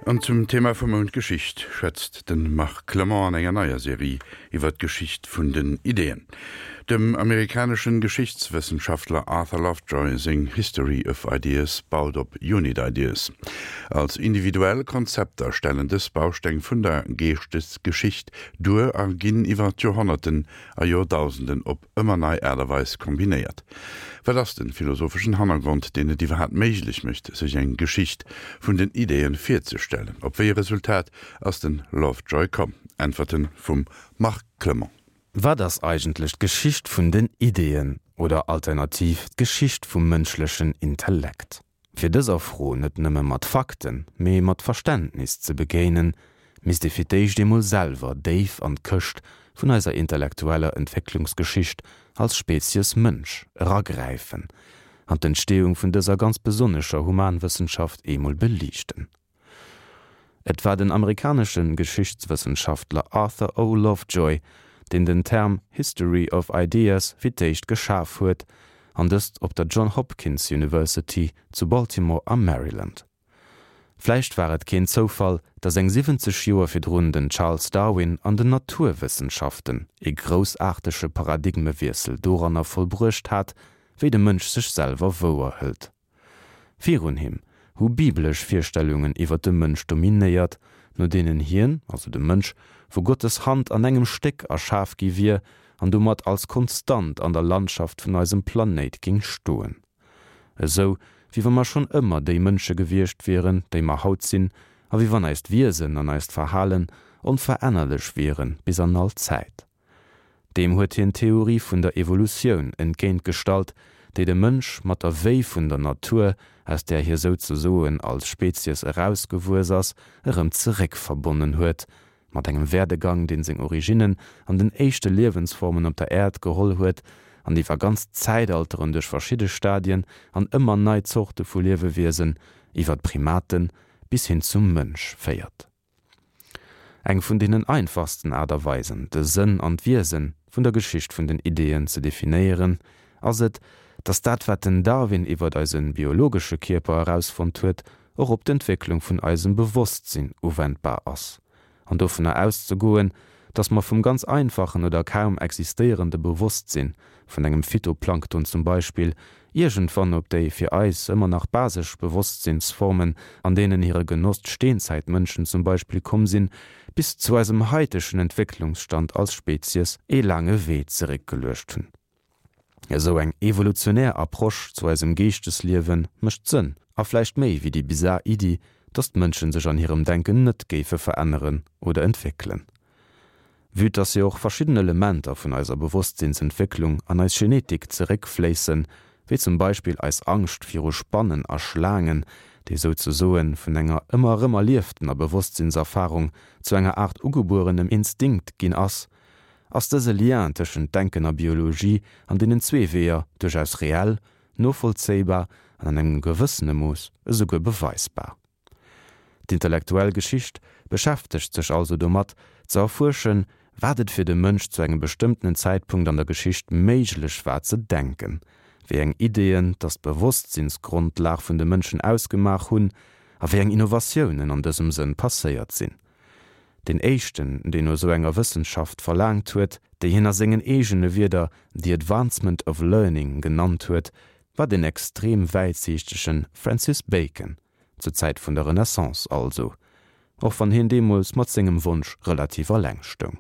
An zum Thema vum Mount Geschicht schwätzt de Marc Clement an enger neier Serie iwwer d'Geschicht vun den Ideeën. Dem amerikaneschen Geschichtswëssenschaftler Arthur Lovejoy seng History of Ideas baut op Unit Ideas. Als individuell Konzepter stellen dës Bausteng vun der Geeschtesgeschicht duer a ginn iwwer d'Joerhonnerten a Joerdausenden op ëmmer nei Aart a Weis kombinéiert. Wat ass den philosopheschen Hannergrond, deen et iwwerhaapt méiglech mécht, sech eng Geschicht vun den Ideeën virzestellen? Op wéi e Resultat ass den Lovejoy komm? Äntwerten vum Marc Clement. Wat ass eigentlech d'Geschicht vun den Ideeën oder alternativ d'Geschicht vum mënschlechen Intellekt? Fir dëser Fro net nëmme mat Fakten, mee mat Verständnis ze begéinen, misst ee fir d'éischt eemol selwer déif an d'Këscht vun eiser intellektueller Entwécklungsgeschicht als Spezies Mënsch eragräifen an d'Entstehung vun dëser ganz besonnescher Humanwëssenschaft eemol beliichten. Et war den amerikanesche Geschichtswëssenschaftler Arthur O. Lovejoy, deen den Term History of Ideas fir d'éischt geschaf huet, an dëst op der John Hopkins University zu Baltimore am Maryland. Vläicht war et keen Zoufall, datt eng 70 Joer virdrun den Charles Darwin an den Naturwëssenschaften ee groussaartege Paradigmewiessel doranner vollbruecht hat, wéi de Mënsch sech selwer wouerhëlt. Virun him hu biblesch Virstellungen iwwer de Mënsch dominéiert, no deenen hien, also de Mënsch, vu Gottes Hand an engem Stéck erschaf gi wier an domat als Konstant an der Landschaft vun eisem Planéit géing stoen. Esou wéi wa mer schonn ëmmer déi Mënsche gewiescht wieren, déi mer haut sinn, a wéi wann eist Wiesen an eist Verhalen onverännerlech wiere bis an all Zäit. Deem huet hien d'Theorie vun der Evolutioun entgéint gestallt, déi de Mënsch mat der Wéi vun der Natur, aus där hie souzesoen als Spezies erausgewuess ass, erëm zeréck verbonnen huet, mat engem Werdegang, dee seng Originnen an den éischte Liewensformen op der Äerd geholl huet an iwwer ganz Zäitalteren duerch verschidde Stadien an ëmmer nei Zorte vu Liewewiesen, iwwer d'Primaten bis hin zum Mënsch féiert. Eng vun deenen einfachsten Aart a Weisen, de Sënn an d'Wiese vun der Geschicht vun den Ideeën ze definéieren, ass et, datt dat, wat den Darwin iwwert eise biologesche Kierper erausfonnt huet, och op d'Entwécklung vun eisem Bewosstsinn uwendbar ass. An dovunner auszegoen, datt mer vum ganz einfachen oder kaum existéierende Bewosstsinn, vun engem Phytoplankton zum Beispill, iergendwann op déi fir eis ëmmer nach basesch Bewosstsinnsformen, an deenen hire Genoss d'Steenzäitmënschen zum Beispill komm sinn, bis zu eisem haitegen Entwécklungsstand als Spezies ee laange Wee zeréckgeluecht hunn. Esou eng evolutionär Approche zu eisem Geeschtesliewe mécht Sënn, a vläicht méi wéi déi bizar Iddi, datt d'Mënsche sech an hirem Denken net géife veränneren oder entwéckelen. Vue dass jo och verschidden Elementer vun eiser Bewosstsinnsentwécklung an eis Genetik zeréckfléissen, wéi zum Beispill eis Angscht viru Spannen a Schlaangen, déi souzesoen vun enger ëmmer erëm erlieftener Bewosstsinnserfarung zu enger Aart ugebuerenem Instinkt ginn ass, ass dëse Lien tëschent Denken a Biologie an deenen zwee Weeër duerchaus reell, novollzéibar an an engem gewëssene Mooss esouguer beweisbar. D'intellektuell Geschicht beschäftegt sech also domat, ze erfuerschen, wat et fir de Mënsch zu engem bestëmmtenen Zäitpunkt an der Geschicht méiglech war ze denken, wéi eng Ideeën dass d'Bewosstsinnsgrondlag vun de Mënschen ausgemaach hunn a wéi eng Innovatiounen an dësem Sënn passéiert sinn. Deen éischten, deen no esou enger Wëssenschaft verlaangt huet, déi hien a sengen eegene Wierder the advancement of learning genannt huet, war den extrem wäitsiichtege Francis Bacon, zur Zäit vun der Renaissance also, och wann hien deemools mat sengem Wonsch relativ alleng stoung.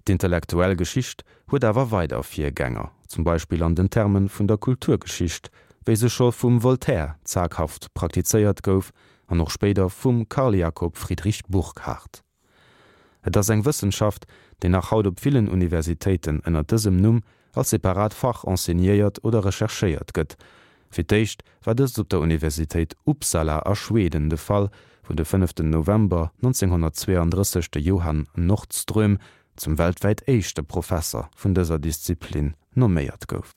D'intellektuell Geschicht huet awer weider Virgänger, zum Beispill an den Terme vun der Kulturgeschicht, wéi se scho vum Voltaire zaghaft praktizéiert gouf an och spéider vum Carl Jakob Friedrich Burckhardt. Et ass eng Wëssenschaft, déi nach haut op villen Universitéiten ënner dësem Numm als separat Fach enseignéiert oder recherchéiert gëtt. Fir d'éischt war dëst op der Universitéit Uppsala a Schweden de Fall, wou de fënneften November 1932 de Johan Nordström zum weltwäit éischte Professer vun dëser Disziplin nomméiert gouf.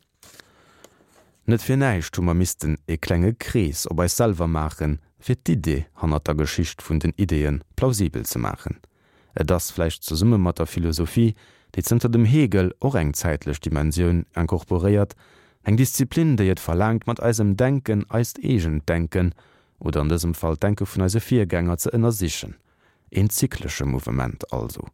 Net fir näischt hu mer missten e klenge Krees op eis selwer maachen, fir d'Idee hannert der Geschicht vun den Ideeë plausibel ze maachen. Et ass, vläicht zesumme mat der Philosophie, déi zënter dem Hegel och eng zäitlech Dimensioun incorporéiert, eng Disziplin, déi et verlaangt, mat eisem Denken eist eegent Denken. oder an dësem Fall d'Denke vun eise Virgänger, ze ënnersichen. Een zyklesche Mouvement also.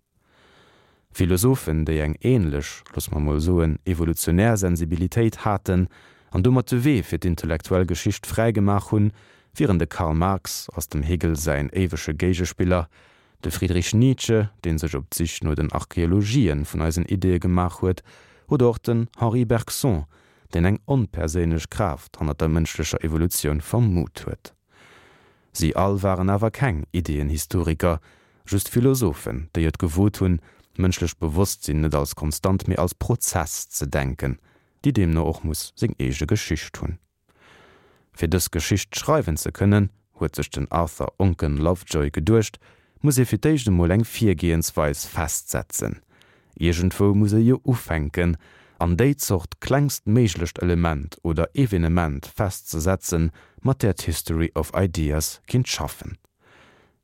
Philosophen, déi eng ähnlech, loosse mer mol soen, evolutionär Sensibilitéit haten an domat de Wee fir d'intellektuell Geschicht fräi gemaach hunn, wieren de Karl Marx, als dem Hegel säin éiwege Géigespiller, de Friedrich Nietzsche, dee sech op d'Sich no den Archeologien vun eisen Ideeë gemaach huet, oder och den Henri Bergson, deen eng onperséinlech Kraaft hannert der mënschlecher Evolutioun vermut huet. Si all waren awer keng Ideeënhistoriker, just Philosophen, déi et gewot hunn, d'mënschlecht Bewosstsinn net als Konstant, mee als Prozess ze denken, déi deemno och muss seng eege Geschicht hunn. Fir dës Geschicht schreiwen ze kënnen, huet sech den Arthur Onken Lovejoy geduecht, muss ee fir d'éischt emol eng Virgehensweis festsetzen. Iergendwou muss ee jo ufänken an déi Zort klengstméiglecht Element oder Evenement festzesetzen, mat där d'History of Ideas kinnt schaffen.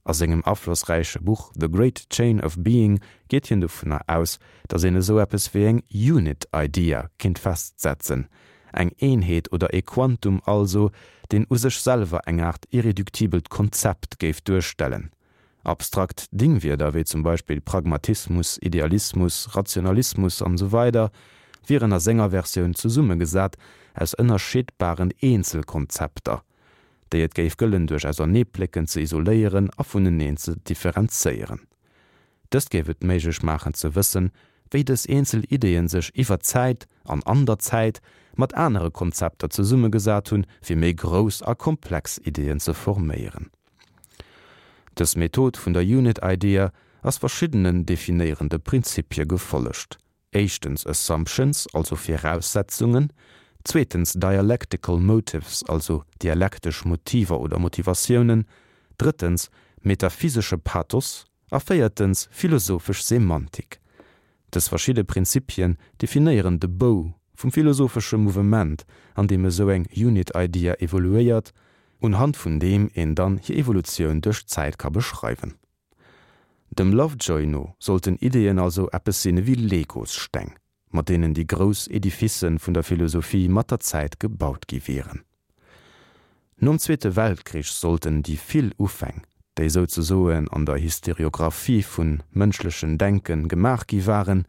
A sengem aflossräiche Buch The Great Chain of Being geet hien dovunner aus, datt een esou eppes wéi eng Unit Idea kinnt festsetzen, eng Eenheet oder ee Quantum also, deen u sech selwer eng Aart irreduktibelt Konzept géif duerstellen. Abstrakt Dingwierder wéi zum Beispill Pragmatismus, Idealismus, Rationalismus an esou weider wieren a senger Versioun zesummegesat aus ënnerscheedbaren Eenzelkonzepter. déi et géif gëllen duerch Auserneeplécken ze isoléieren a vuneneen ze differenzéieren. Dëst géif et méiglech maachen ze wëssen, wéi dës eenzel Ideeën sech iwwer d'Zäit an an der Zäit mat anere Konzepter zesummegesat hunn, fir méi grouss a komplex Ideeën ze forméieren. Dës Method vun der Unit Idea ass verschiddenen definéierende Prinzipie gefollegt. Éischtens Assumptions, also Viraussetzungen, zweetens Dialectical Motives, also dialektesch Motiver oder Motivatiounen, drëttens metaphysesche Pathos a véiertens philosophesch Semantik. Dës verschidde Prinzipien definéieren de Bou vum philosophesche Mouvement, an deem esou eng Unit Idea evoluéiert, unhand vun deem een dann hir Evolutioun duerch d'Zäit ka beschreiwen. Dem Lovejoy no sollten Ideeën also eppes sinn ewéi Legossteng, mat deenen déi grouss Edificen vun der Philosophie mat der Zäit gebaut gi wieren. Nom Zweete Weltkrich sollten déi vill Ufäng, déi souzesoen an der Historiographie vun mënschlechen Denken gemaach gi waren,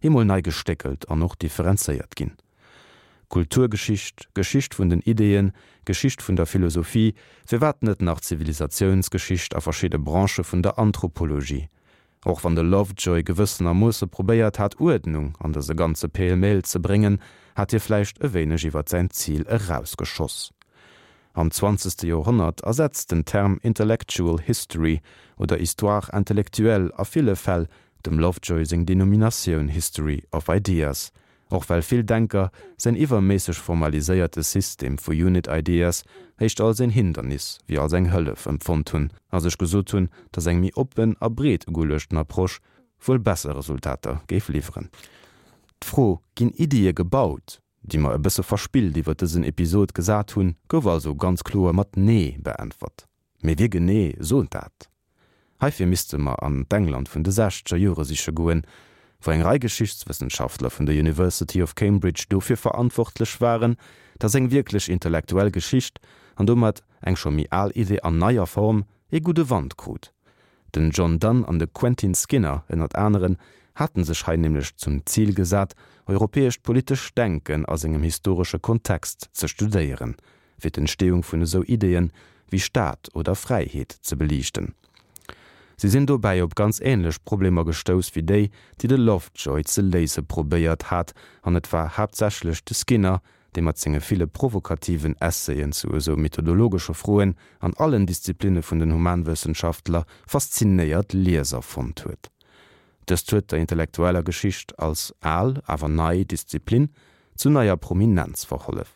eemol nei gestéckelt an och differenzéiert ginn. Kulturgeschicht, Geschicht vun den Ideeën, Geschicht vun der Philosophie, firwat net nach Zivilisatiounsgeschicht a verschidde Branchë vun der Anthropologie? Och wann de Lovejoy gewëssenermoosse probéiert hat Uerdnung an dëse ganze Pêle-mêle ze bréngen, hat hie vläicht e wéineg iwwer säin Zil erausgeschoss. Am zwanzegste Joerhonnert ersetzt den Term Intellectual History oder Histoire intellectuelle a ville Fäll dem Lovejoy seng Denominatioun History of Ideas, Och well vill Denker säin iwwerméisseg formaliséierte System vu Unit Ideas éischter als een Hindernis wéi als eng Hëllef empfonnt hunn a sech gesot hunn, datt eng méi oppen a breet ugeluechten Approche wuel besser Resultater géif liwweren. D'Fro Ginn Iddie gebaut? déi mer e bësse verspillt iwwer dësen Episod gesat hunn, gouf also ganz kloer mat Nee beäntwert. Mee wie genee sot dat? Heifir misste mer an d'England vun de sechzeger Jore siche goen, wou eng Rei Geschichtswëssenschaftler vun der University of Cambridge dofir verantwortlech waren, datt eng wierklech intellektuell Geschicht, an domat eng scho méi al Idee an neier Form, ee gudde Wand krut. Den John Donne an de Quentin Skinner ënnert aneren haten sech hei nämlech zum Zil gesat, europäescht politescht Denken a sengem historesche Kontext ze studéieren, fir d'Entstehung vun esou Ideeën wéi Staat oder Fräiheet ze beliichten. Si sinn dobäi op ganz änlech Problemer gestouss wéi déi, déi de Lovejoy ze léise probéiert hat, an et war haaptsächlech de Skinner, dee mat senge ville provokativen Essayen zu esou methodologesche Froen an allen Disziplinne vun den Humanwëssenschaftler faszinéiert Lieser fonnt huet. Dëst huet der intellektueller Geschicht als al, awer nei Disziplin zu neier Prominenz verhollef.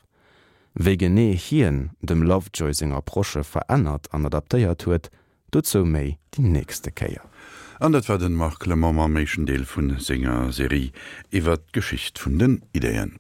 Wéi genee hien dem Lovejoy seng Approche verännert an adaptéiert huet, dozou méi déi nächste Kéier. An dat war den Marc Clement mam éischten Deel vun senger Serie iwwert d'Geschicht vun den Ideeën.